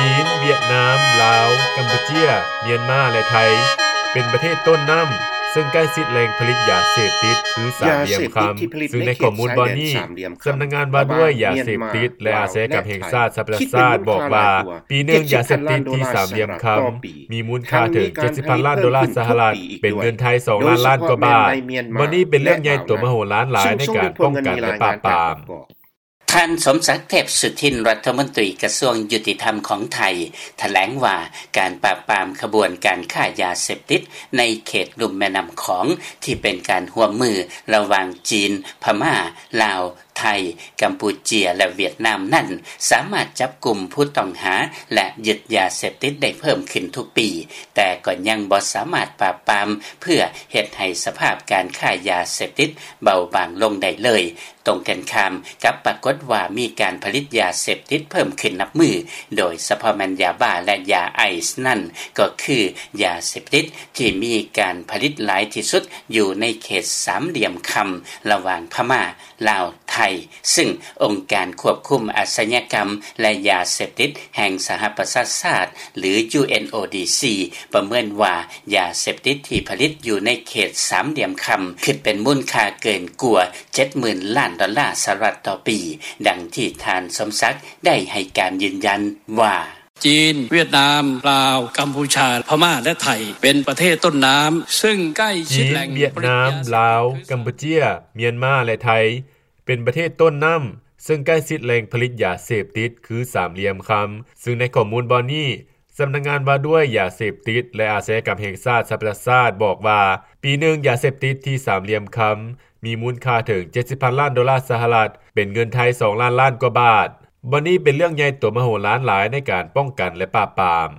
ຈີນ, ຫວຽດນາມ, ລາວ, ກຳປູເຈຍ, ມຽນມາ ແລະ ໄທ ເປັນປະເທດຕົ້ນນ້ຳ ເຊິ່ງໃກ້ຊິດແຫຼ່ງຜະລິດຢາເສບຕິດ ຄືສາມຫຼ່ຽມຄຳ ຊຶ່ງໃນຂໍ້ມູນບ່ອນນີ້ ສຳນັກງານວ່າດ້ວຍຢາເສບຕິດ ແລະ ອາຊຍາກັມແຫ່ງຊາດ ສະຫະປະຊາຊາດ ບອກວ່າ ປີໜຶ່ງ ຢາເສບຕິດທີ່ສາມຫຼ່ຽມຄຳ ມີມູນຄ່າເຖິງເຈັດສິບພັນລ້ານໂດລາສະຫະລັດ ເປັນເງິນໄທສອງລ້ານລ້ານກວ່າບາດ. ບ່ອນນີ້ເປັນເລື່ອງໃຫຍ່ໂຕມະໂຫລານຫຼາຍໃນການປ້ອງກັນ ແລະ ປາບປາມ. ທ່ານ ສົມສັກ ເທບສຸທິນ ລັດຖະມົນຕີກະຊວງຍຸຕິທຳຂອງໄທ ຖະແຫຼງວ່າ ການປາບປາມຂະບວນການຄ້າຢາເສບຕິດໃນເຂດລຸ່ມແມ່ນ້ຳຂອງ ທີ່ເປັນການຮ່ວມມືລະຫວ່າງຈີນ, ພະມ້າ, ລາວ, ໄທ, ກຳປູເຈຍ ແລະ ຫວຽດນາມນັ້ນ ສາມາດຈັບກຸມຜູ້ຕ້ອງຫາ ແລະ ຍຶດຢາເສບຕິດໄດ້ເພີ່ມຂຶ້ນທຸກປີ, ແຕ່ກໍຍັງບໍ່ສາມາດປາບປາມ ເພື່ອເຮັດໃຫ້ສະພາບການຄ້າຢາເສບຕິດເບົາບາງລົງໄດ້ເລີຍ. ຕົງກັນຂ້າມກັບປາກົດວ່າມີການຜະລິດຢາເສບຕິດເພີ່ມຂຶ້ນນັບມື້, ໂດຍສະເພາະແມ່ນຢາບ້າ ແລະ ຢາໄອສ໌ນັ້ນ ກໍຄືຢາເສບຕິດທີ່ມີການຜະລິດຫຼາຍທີ່ສຸດຢູ່ໃນເຂດສາມຫຼ່ຽມຄຳ ລະຫວ່າງພະມ້າ, ລາວ, ໄທ ຊຶ່ງອົງການຄວບຄຸມອາຊະຍາກຳ ແລະ ຢາເສບຕິດແຫ່ງສະຫະປະຊາຊາດ ຫຼື ຢູເອັນໂອດີຊີ ປະເມີນວ່າ ຢາເສບຕິດທີ່ຜະລິດຢູ່ໃນເຂດສາມຫຼ່ຽມຄຳ ຄິດເປັນມູນຄ່າເກີນກວ່າເຈັດໝື່ນລ້ານໂດລາສະຫະລັດຕໍ່ປີ, ດັ່ງທີ່ທ່ານ ສົມສັກ ໄດ້ໃຫ້ການຢືນຢັນວ່າ ຈີນ, ຫວຽດນາມ, ລາວ, ກຳປູເຈຍ, ພະມ້າ ແລະ ໄທ ເປັນປະເທດຕົ້ນນ້ຳ ເຊິ່ງໃກ້ຊິດແຫຼ່ງ ຈີນ, ຫວຽດນາມ, ລາວ, ກຳປູເຈຍ, ມຽນມາ ແລະ ໄທ ເປັນປະເທດຕົ້ນນ້ຳ ເຊິ່ງໃກ້ຊິດແຫຼ່ງຜະລິດຢາເສບຕິດ ຄືສາມຫຼ່ຽມຄຳ ຊຶ່ງໃນຂໍ້ມູນບ່ອນນີ້ ສຳນັກງານວ່າດ້ວຍຢາເສບຕິດ ແລະ ອາຊະຍາກຳແຫ່ງຊາດ ສະຫະປະຊາຊາດ ບອກວ່າ ປີໜຶ່ງ ຢາເສບຕິດທີ່ສາມຫຼ່ຽມຄຳ ມີມູນຄ່າເຖິງເຈັດສິບພັນລ້ານໂດລາສະຫະລັດ ເປັນເງິນໄທສອງລ້ານລ້ານກວ່າບາດ. ບ່ອນນີ້ເປັນເລື່ອງໃຫຍ່ໂຕມະໂຫລານຫຼາຍໃນການປ້ອງກັນ ແລະ ປາບປາມ.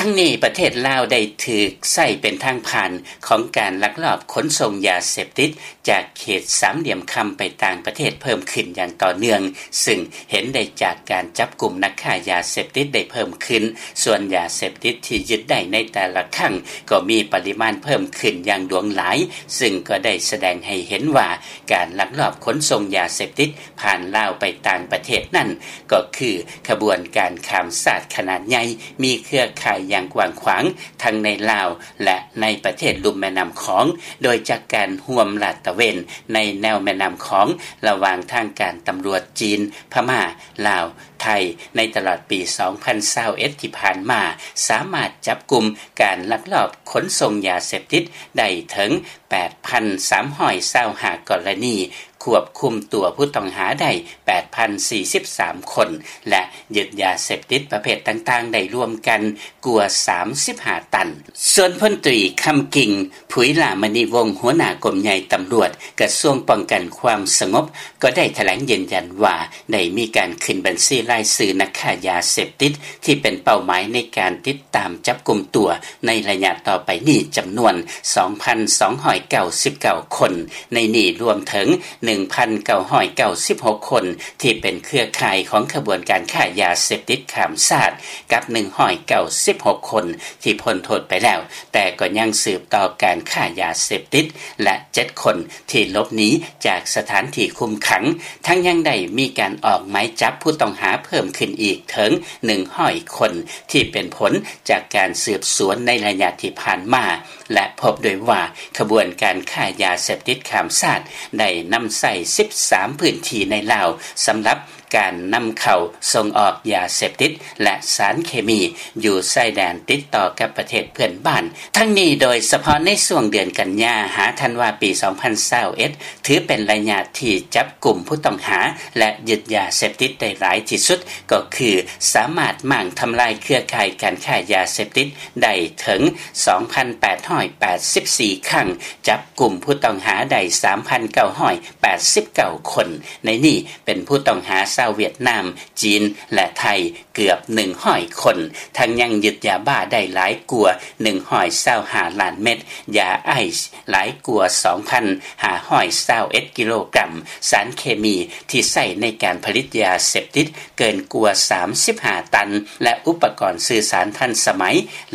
ທັງນີ້ ປະເທດລາວໄດ້ຖືກໃຊ້ເປັນທາງຜ່ານຂອງການລັກລອບຂົນສົ່ງຢາເສບຕິດຈາກເຂດສາມຫຼ່ຽມຄຳໄປຕ່າງປະເທດເພີ່ມຂຶ້ນຢ່າງຕໍ່ເນື່ອງ, ຊຶ່ງເຫັນໄດ້ຈາກການຈັບກຸມນັກຄ້າຢາເສບຕິດໄດ້ເພີ່ມຂຶ້ນ. ສ່ວນຢາເສບຕິດທີ່ຍຶດໄດ້ໃນແຕ່ລະຄັ້ງກໍມີປະລິມານເພີ່ມຂຶ້ນຢ່າງຫຼວງຫຼາຍ, ຊຶ່ງກໍໄດ້ສະແດງໃຫ້ເຫັນວ່າ ການລັກລອບຂົນສົ່ງຢາເສບຕິດຜ່ານລາວໄປຕ່າງປະເທດນັ້ນ ກໍຄືຂະບວນການຂ້າມຊາດຂະໜາດໃຫຍ່ ມີເຄືອຂ່າຍຢ່າງກວ້າງຂວາງ ທັງໃນລາວ ແລະ ໃນປະເທດລຸ່ມແມ່ນ້ຳຂອງ, ໂດຍຈາກການຮ່ວມລາດຕະເວນໃນແນວແມ່ນ້ຳຂອງ ລະຫວ່າງທາງການຕຳຫຼວດຈີນ, ພະມ້າ, ລາວ, ໄທ ໃນຕະຫຼອດປີສອງພັນຊາວເອັດທີ່ຜ່ານມາ ສາມາດຈັບກຸມການລັກລອບຂົນສົ່ງຢາເສບຕິດໄດ້ເຖິງແປດພັນສາມຮ້ອຍຊາວຫ້າກໍລະນີ, ຄວບຄຸມຕົວຜູ້ຕ້ອງຫາໄດ້ແປດພັນສີ່ສິບສາມຄົນ ແລະ ຍຶດຢາເສບຕິດປະເພດຕ່າງໆໄດ້ລວມກັນກວ່າສາມສິບຫ້າຕັນ. ສ່ວນ ພົນຕີ ຄຳກິ່ງ ຜຸຍຫຼ້າມະນີວົງ ຫົວໜ້າກົມໃຫຍ່ຕຳຫຼວດ ກະຊວງປ້ອງກັນຄວາມສະຫງົບ ກໍໄດ້ຖະແຫຼງຢືນຢັນວ່າ ໄດ້ມີການຂຶ້ນບັນຊີລາຍຊື່ນັກຄ້າຢາເສບຕິດ ທີ່ເປັນເປົ້າໝາຍໃນການຕິດຕາມຈັບກຸມຕົວໃນໄລຍະຕໍ່ໄປນີ້ ຈຳນວນສອງພັນສອງຮ້ອຍເກົ້າສິບເກົ້າຄົນ, ໃນນີ້ລວມເຖິງໜຶ່ງພັນເກົ້າຮ້ອຍເກົ້າສິບຫົກຄົນ ທີ່ເປັນເຄືອຂ່າຍຂອງຂະບວນການຄ້າຢາເສບຕິດຂ້າມຊາດ ກັບໜຶ່ງຮ້ອຍເກົ້າສິບຫົກຄົນທີ່ພົ້ນໂທດໄປແລ້ວ ແຕ່ກໍຍັງສືບຕໍ່ການຄ້າຢາເສບຕິດ ແລະ ເຈັດຄົນທີ່ຫຼົບໜີຈາກສະຖານທີ່ຄຸມຂັງ, ທັງຍັງໄດ້ມີການອອກໝາຍຈັບຜູ້ຕ້ອງຫາເພີ່ມຂຶ້ນອີກເຖິງໜຶ່ງຮ້ອຍຄົນ ທີ່ເປັນຜົນຈາກການສືບສວນໃນໄລຍະທີ່ຜ່ານມາ ແລະ ພົບດ້ວຍວ່າຂະບວນການຄ້າຢາເສບຕິດຂ້າມຊາດໄດ້ນຳໃຊ້ສິບສາມພື້ນທີ່ໃນລາວ ສຳລັບ ການນຳເຂົ້າສົ່ງອອກຢາເສບຕິດ ແລະ ສານເຄມີ ຢູ່ຊາຍແດນຕິດຕໍ່ກັບປະເທດເພື່ອນບ້ານ. ທັງນີ້ ໂດຍສະເພາະໃນຊ່ວງເດືອນກັນຍາ ຫາ ທັນວາ ປີສອງພັນຊາວເອັດ ຖືເປັນໄລຍະທີ່ຈັບກຸມຜູ້ຕ້ອງຫາ ແລະ ຍຶດຢາເສບຕິດໄດ້ຫຼາຍທີ່ສຸດ ກໍຄືສາມາດມ້າງທຳລາຍເຄືອຂ່າຍການຄ້າຢາເສບຕິດໄດ້ເຖິງສອງພັນແປດຮ້ອຍແປດສິບສີ່ຄັ້ງ, ຈັບກຸມຜູ້ຕ້ອງຫາໄດ້ສາມພັນເກົ້າຮ້ອຍແປດສິບເກົ້າຄົນ, ໃນນີ້ ເປັນຜູ້ຕ້ອງຫາຊາວຫວຽດນາມ, ຈີນ ແລະ ໄທເກືອບໜຶ່ງຮ້ອຍຄົນ, ທັງຍັງຍຶດຢາບ້າໄດ້ຫຼາຍກວ່າໜຶ່ງຮ້ອຍຊາວຫ້າລ້ານເມັດ, ຢາໄອສ໌ຫຼາຍກວ່າສອງພັນຫ້າຮ້ອຍຊາວເອັດກິໂລກຣາມ, ສານເຄມີທີ່ໃຊ້ໃນການຜະລິດຢາເສບຕິດເກີນກວ່າສາມສິບຫ້າຕັນ ແລະ ອຸປະກອນສື່ສານທັນສະໄໝ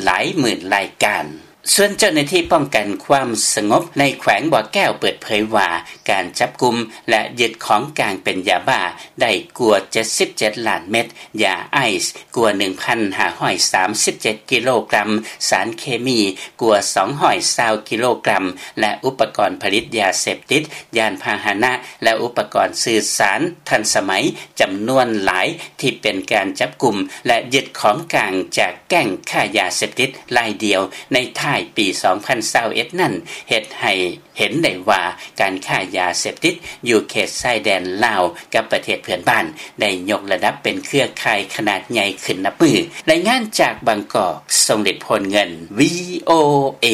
ຫຼາຍໝື່ນລາຍການ. ສ່ວນເຈົ້າໜ້າທີ່ປ້ອງກັນຄວາມສະຫງົບ ໃນແຂວງບໍ່ແກ້ວເປີດເຜີຍວ່າ ການຈັບກຸມ ແລະ ຍຶດຂອງກາງເປັນຢາບ້າ ໄດ້ກວ່າ ເຈັດສິບເຈັດລ້ານເມັດ, ຢາໄອສ໌ ກວ່າ ໜຶ່ງພັນຫ້າຮ້ອຍສາມສິບເຈັດກິໂລກຣັມ, ສານເຄມີ ກວ່າ ສອງຮ້ອຍຊາວກິໂລກຣັມ ແລະ ອຸປະກອນຜະລິດຢາເສບຕິດ, ຍານພາຫະນະ ແລະ ອຸປະກອນສື່ສານທັນສະໄໝ ຈຳນວນຫຼາຍ ທີ່ເປັນການຈັບກຸມ ແລະ ຍຶດຂອງກາງຈາກແກ້ງຄ້າຢາເສບຕິດລາຍດຽວ ໃນທ້າຍປີສອງພັນຊາວເອັດນັ້ນ ເຮັດໃຫ້ເຫັນໄດ້ວ່າ ການຄ້າຢາເສບຕິດຢູ່ເຂດຊາຍແດນລາວກັບປະເທດເພື່ອນບ້ານ ໄດ້ຍົກລະດັບເປັນເຄືອຂ່າຍຂະໜາດໃຫຍ່ຂຶ້ນນັບມື້. ລາຍງານຈາກບາງກອກ ຊົງລິດ ໂພນເງິນ ວີໂອເອ.